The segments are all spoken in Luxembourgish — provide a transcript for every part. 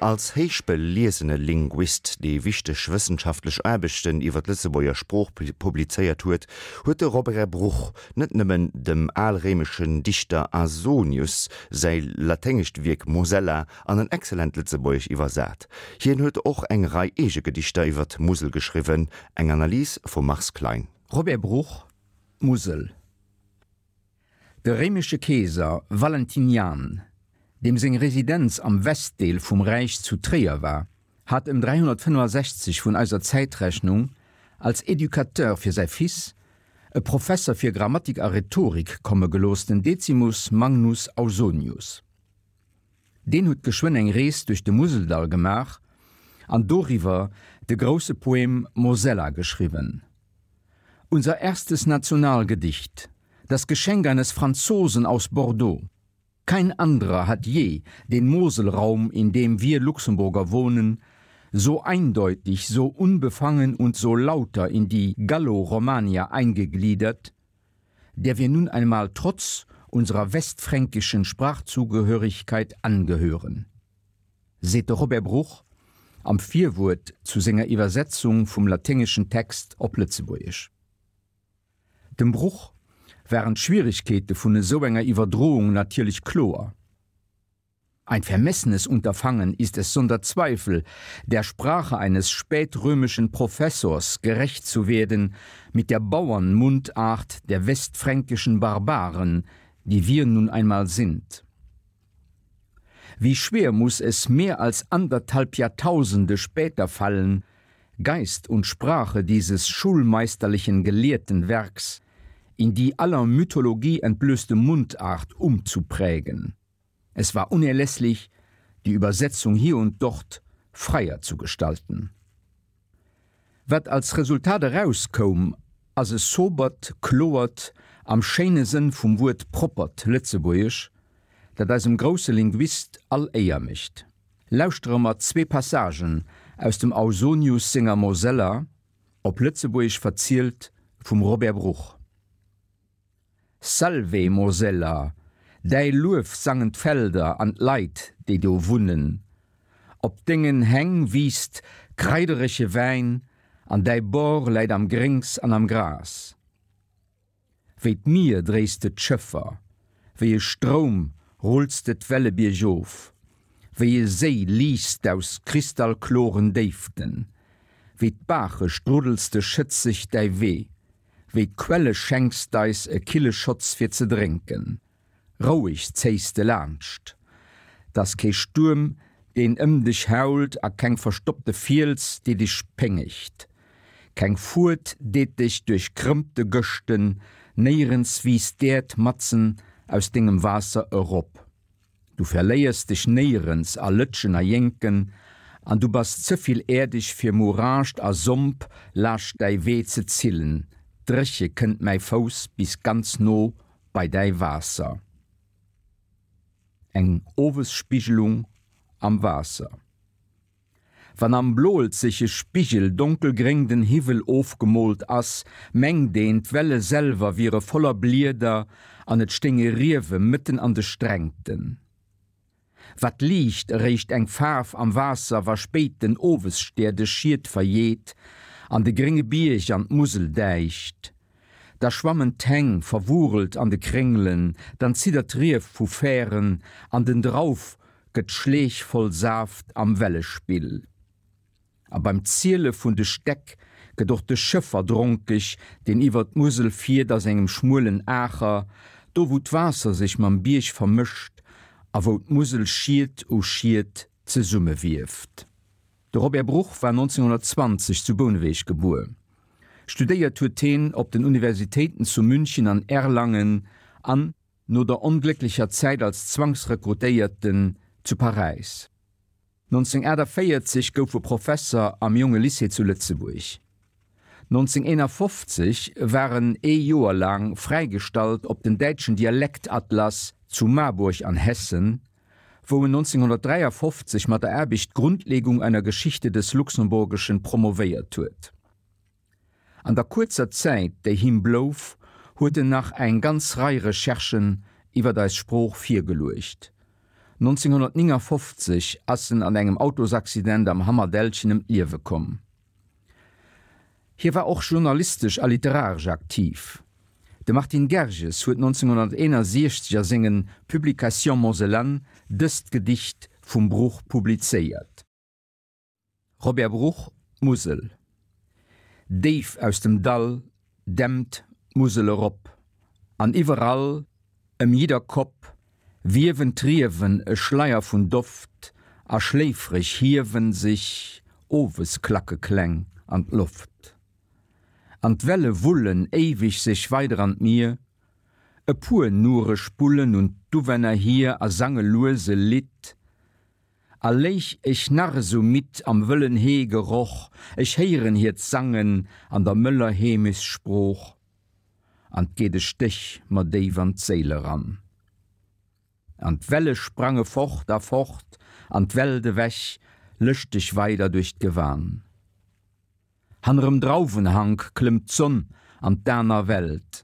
Als héichbeliesene Linguist, dee wichteg wëssenschaftlech Aarbechten iwwer d'Lëtzebuerger Sprooch publizéiert huet, huet de Robert Bruch net nëmmen dem alréimeschen Dichter Ausonius säi laténgescht Wierk Mosella an en excellent Lëtzebuergesch iwwersat, hien huet och eng Rei eege Gedichter iwwer d'Musel geschriwwen, eng Analys vum Mars Klein. Robert Bruch, D'Musel. De réimesche Keeser Valentinian, deem seng Residenz am Westdeel vum Räich zu Tréier war, hat ëm 365 vun eiser Zäitrechnung als Educateur fir säi Fils e Professer fir Grammatik a Rhetorik komme gelooss, den Decimus Magnus Ausonius. Deen huet geschwënn eng Rees duerch de Museldall gemaach an doriwwer de grousse Poem Mosella geschriwwen. Unser erstes Nationalgedicht, das Geschenk eines Franzosen aus Bordeaux. Kein anderer hat je den Moselraum, in dem wir Luxemburger wohnen, so eindeutig, so unbefangen und so lauter in die Gallo-Romania eingegliedert, der wir nun einmal trotz unserer westfränkischen Sprachzugehörigkeit angehören. Seet de Robert Bruch am Virwuert zu senger Iwwersetzung vum laténgeschen Text op Lëtzebuergesch. Dem Bruch waren d'Schwieregkeete vun esou enger Iwwerdroung natierlech kloer. Ein vermessenes Unterfangen ist es sonder Zweifel, der Sprache eines spätrömischen Professors gerecht zu werden mit der Bauernmundart der westfränkischen Barbaren, die wir nun einmal sind. Wie schwer muss es mehr als anderthalb Jahrtausende später fallen, Geist und Sprache dieses schulmeisterlichen gelehrten Werks in die aller Mythologie entblößte Mundart umzuprägen. Es war unerlässlich, die Übersetzung hier und dort freier zu gestalten. Wat als Resultat erauskoum, ass e sobert, kloert, am schéine Sënn vum Wuert proppert Lëtzebuergesch, dat eisem grousse Linguist all Éier mécht. Lauschtere mer zwee Passagen aus dem Ausonius senger Mosella, op Lëtzebuergesch verzielt vum Robert Bruch. Salve Mosella, däi Luef sangen d'Felder an d'Leit, déi do wunnen. Op dengen Häng wiisst kraiderege Wäin an däi Bord läit am Gréngs an am Gras. Wéi d'Mier dréis de d'Schëffer, wéi e Stroum rulls de d'Welle biergof, wéi e Séi liichts d'aus kristallkloren Déiften, wéi d'Baache struddels de schëtzeg däi Wee. Wéi d'Quelle schenks d'eis e kille Schotz fir ze drénken. Roueg zéis de laanscht. 't ass kee Stuerm, deen ëm dech hault a keng verstoppte Fiels, déi dech péngegt. Keng Fuert deet dech duerch krëmmte Gëschten, néierens wiisst d'Äerd matzen aus dengem Waasser erop. Du verléiers dech néierens a Lëtschen a Jénken, an du bass ze vill äerdeg fir Mourascht a Somp laascht däi Wee ze zillen, dréche kënnt mäi Fouss bis ganz no bei däi Waasser. Eng Owesspigelung am Waasser. Wann am bloelzege Spigel donkelgréng den Hiwwel ofgemoolt ass, mengt een, d'Welle selwer wiere voller Blieder an et stéinge Riewe mëtten an de Strängten. Wat liicht eréischt eng Faarf am Waasser, wa spéit den Owesstär de Schiet verjeet an de grénge Bierg an d'Musel däicht. Da schwammen d'Häng verwurelt an de Kréngelen, dann ziddert d'Rief vu Fären an den Drauf gëtt Schleech voll Saaft am Wellespill. A beim Ziele vun de Stäck gëtt och de Schëffer dronkeg, deen iwwer d'Musel fiert a sengem schmuelen Aacher, do wou d'Waasser sech mam Bierg vermëscht a wou d'Musel Schiet u Schiet zesummewieft. De Robert Bruch war 1920 zu Bouneweg gebuer. Studéiert huet heen op den Universitéiten zu München an Erlangen an, no der onglécklecher Zäit als Zwangsrekrutéierten, zu Paräis. 1948 gouf e Professer am Jonge Lycée zu Lëtzebuerg. 1951 war en ee Joer laang fräigestallt op den däitschen Dialektatlas zu Marburg an Hessen, wou en 1953 mat der Aarbecht Grundlegung einer Geschichte des Luxemburgischen promovéiert huet. An der kuerzer Zäit, déi him blouf, huet en nach eng ganz Rei Recherchen iwwer eis Sprooch virgeluecht. 1959 ass en an engem Autosaccident am Hammerdällchen ëm d'Liewe komm. Hie war och journalistesch a literaresch aktiv. De Martin Gerges huet 1961 a sengen Publications Mosellanes dëst Gedicht vum Bruch publizéiert. Robert Bruch, D'Musel. Déif aus dem Dall dämpt d'Musel erop, an iwwerall, ëm jidder Kopp, wiewen d'Riewen e Schleier vun Doft, a schléifreg hiewen sech Owesklackekläng an d'Loft. An d'Welle wullen éiweg sech weider an d'Mier, e puer nure spullen un d'Uwänner hier a sange lues e Lidd, A léich ech nach esou midd am wëllen Heegeroch, ech héieren hiert Sangen an der mëller Heemechtssprooch, an 't geet e Stéch mer déif an d'Séil eran. An d'Welle sprange fort a fort an d'Welt ewech, lëschteg weider duerch d'Gewan. Hannerem Drauwenhank klëmmt d'Sonn an d'aner Welt.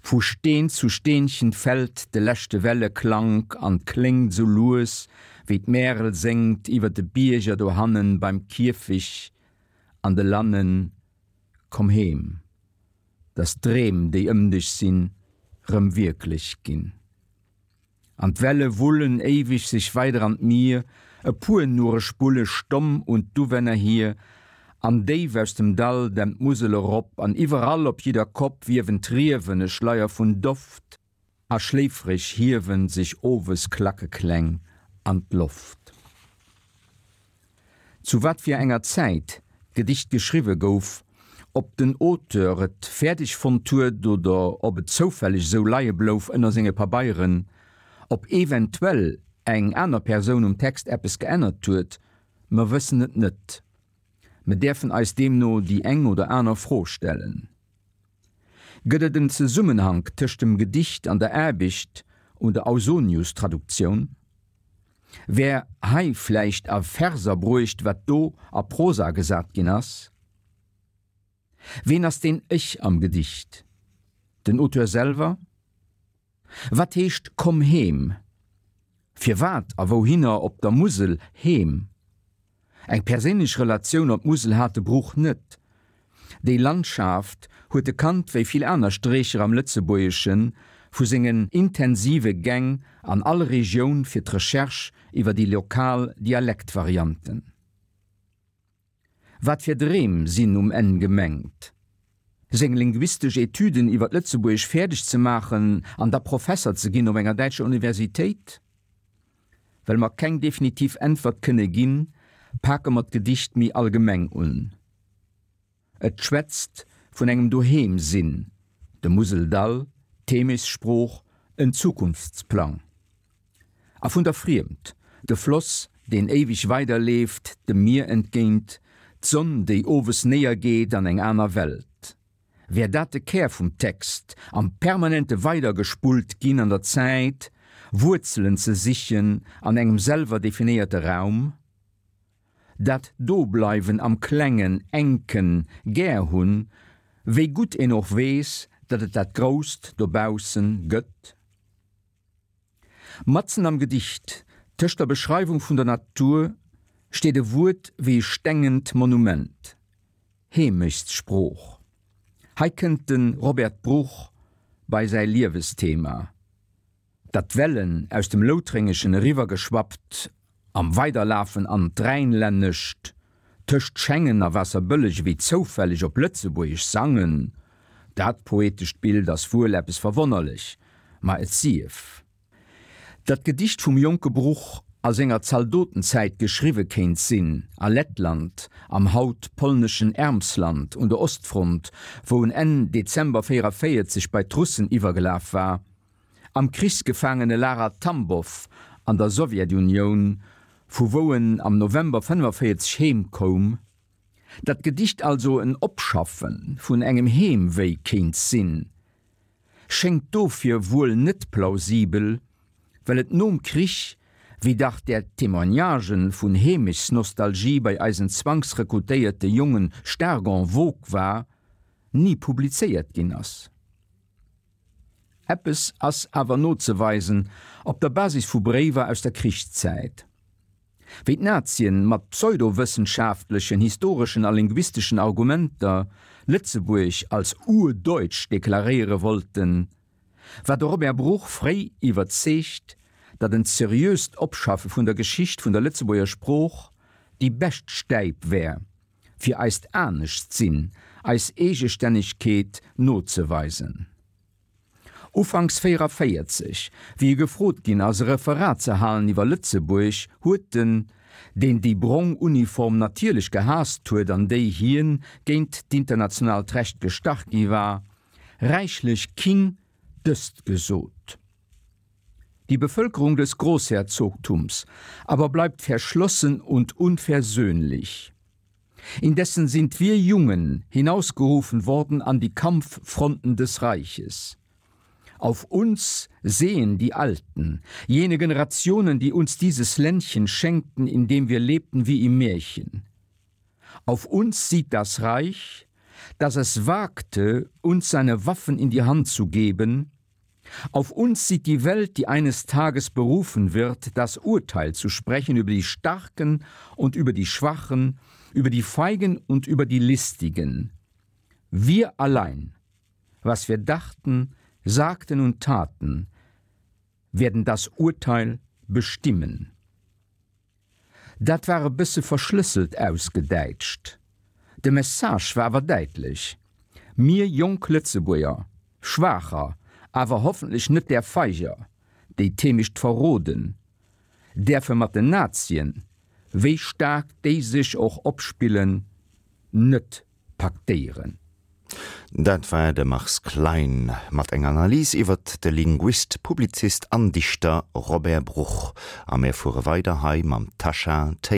Vu Steen zu Steenchen fällt de leschte Welleklank an 't kléngt sou lues, wéi d'Märel séngt iwwer de Bierger dohannen beim Kierfig an de Lannen, Komm heem, dass d'Dreem, déi ëm dech sinn, rëm wierklech ginn. An d'Welle wullen éiweg sech weider an d'Mier, e puer nure spulle stomm un d'Uwänner hier, an déif aus dem Dall dämpt d'Musel erop, an iwwerall op jidder Kopp wiewen d'Riewen e Schleier vun Doft, a schléifreg hiewen sech owes Klackekläng an d'Loft. Zu wat fir enger Zäit d'Gedicht geschriwwe gouf, ob den Auteur et fäerdeg fonnt huet oder ob et zoufälleg esou leie blouf ënner senge Pabeieren, ob eventuell eng aner Persoun um Text eppes geännert huet, mer wëssen et net. Mer däerfen eis deemno déi eng oder aner Fro stellen. Gëtt et en Zesummenhank tëscht dem Gedicht an der Aarbecht un der Ausonius-Traduktioun? Wär hei vläicht a Verser bruecht, wat do a Prosa gesat ginn ass? Ween ass deen Ech am Gedicht? Den Auteur selwer? Wat heescht Komm heem? Firwat a wouhinner op der Musel heem? Eng perséinlech Relatioun op d'Musel hat de Bruch net. Déi Landschaft huet e kannt wéi vill aner Strécher am Lëtzebuergeschen, vu sengen intensive Gäng an all Regioun fir d'Recherche iwwer déi lokal Dialektvarianten. Wat fir Dreem sinn um Enn gemengt? Seng linguistesch Etüden iwwer d'Lëtzebuergesch fäerdeg ze maachen an da Professer ze ginn op enger däitscher Universitéit? Well mer keng definitiv Äntwert kënne ginn, pake mer d'Gedicht méi allgemeng un. Et schwätzt vun engem Doheem-Sinn, dem Museldall, d'Heemechtssprooch, en Zukunftsplang. A vun der Friemd, de Floss, deen éiweg weiderleeft, dem Mier entgéint, d'Sonn, déi owes néiergeet an eng aner Welt. Wär dat de Kär vum Text, am permanente Weidergespullt ginn an der Zäit, Wuerzelen ze sichen an engem selwer definéierte Raum? Dat Dobleiwen am Klengen, Enken gär hunn, wéi gutt een och weess, datt et dat Grousst dobaussen gëtt? Matzen am Gedicht, tëscht der Beschreiwung vun der Natur, steet e Wuert wéi e stengent Monument, Heemechtssprooch. Hei kënnt de Robert Bruch bei säi Liewesthema, datt d'Wellen aus dem Loutrengeschen eriwwergeschwappt am Weiderlafen an d'Rhäinlännescht, tëscht Schengen a Waasserbëlleg ewéi zoufälleg op Lëtzebuergesch sangen. Dat poetescht Bild ass wuel eppes verwonnerlech, ma et sief. Dat d'Gedicht vum jonke Bruch a senger Zaldotenzäit geschriwwe kéint sinn, a Lettland, am haut polneschen Ermsland un der Ostfront, wou en Enn Dezember 44 bei d'Russen iwwergelaf war, Am Krichsgefaangenelager Tambow an der Sowjetunioun, vu wou en am November 45 heem koum. Dat Gedicht also en Opschaffe vun engem Heemwéi kéint sinn, schéngt dofir wuel net plausibel, well et nom Krich, wéi dach där Témoignagen vun Heemechtsnostalgie bei eisen zwangsrekrutéierte Jongen staark en vogue war, ni publizéiert ginn ass. Eppes ass awer nozeweisen op der Basis vu Bréiwer aus der Krichszäit. Wéi d'Nazien mat pseudowëssenschaftlechen, historeschen a linguisteschen Argumenter Lëtzebuerg als urdeutsch deklaréiere wollten, war de Robert Bruch fréi iwwerzeegt, datt en seriöst Opschaffe vun der Geschicht vun der Lëtzebuerger Sprooch déi bescht Stäip wär, fir eist Aneschtsinn, eis Eegestännegkeet nozeweisen. Ufanks 44, wéi e gefrot ginn ass, e Referat ze halen iwwer Lëtzebuerg, huet en, deen déi brong Uniform natierlech gehaasst huet an déi hien géint d'internationaalt Recht gestach gi war, räichlech king dëst gesot, Die Bevölkerung des Großherzogtums aber bleibt verschlossen und unversöhnlich. Indessen sind wir Jungen hinausgerufen worden an die Kampffronten des Reiches. Auf uns sehen die Alten, jene Generationen, die uns dieses Ländchen schenkten, in dem wir lebten wie im Märchen. Auf uns sieht das Reich, dass es wagte, uns seine Waffen in die Hand zu geben, Auf uns sieht die Welt, die eines Tages berufen wird, das Urteil zu sprechen über die Starken und über die Schwachen, über die Feigen und über die Listigen. Wir allein, was wir dachten, sagten und taten, werden das Urteil bestimmen. Dat war e bësse verschlësselt ausgedäitscht. De Message war awer däitlech, Mir jonk Lëtzebuerger, schwaacher, awer hoffentlech net där feiger, déi d'Heemecht verroden, däerfe mat den Nazien, wéi staark déi sech och opspillen, net paktéieren. Dat war de Mars Klein mat enger Analys iwwert de Linguist, Publizist an Dichter Robert Bruch. A mir fuere weider hei mam Tasha Taylor.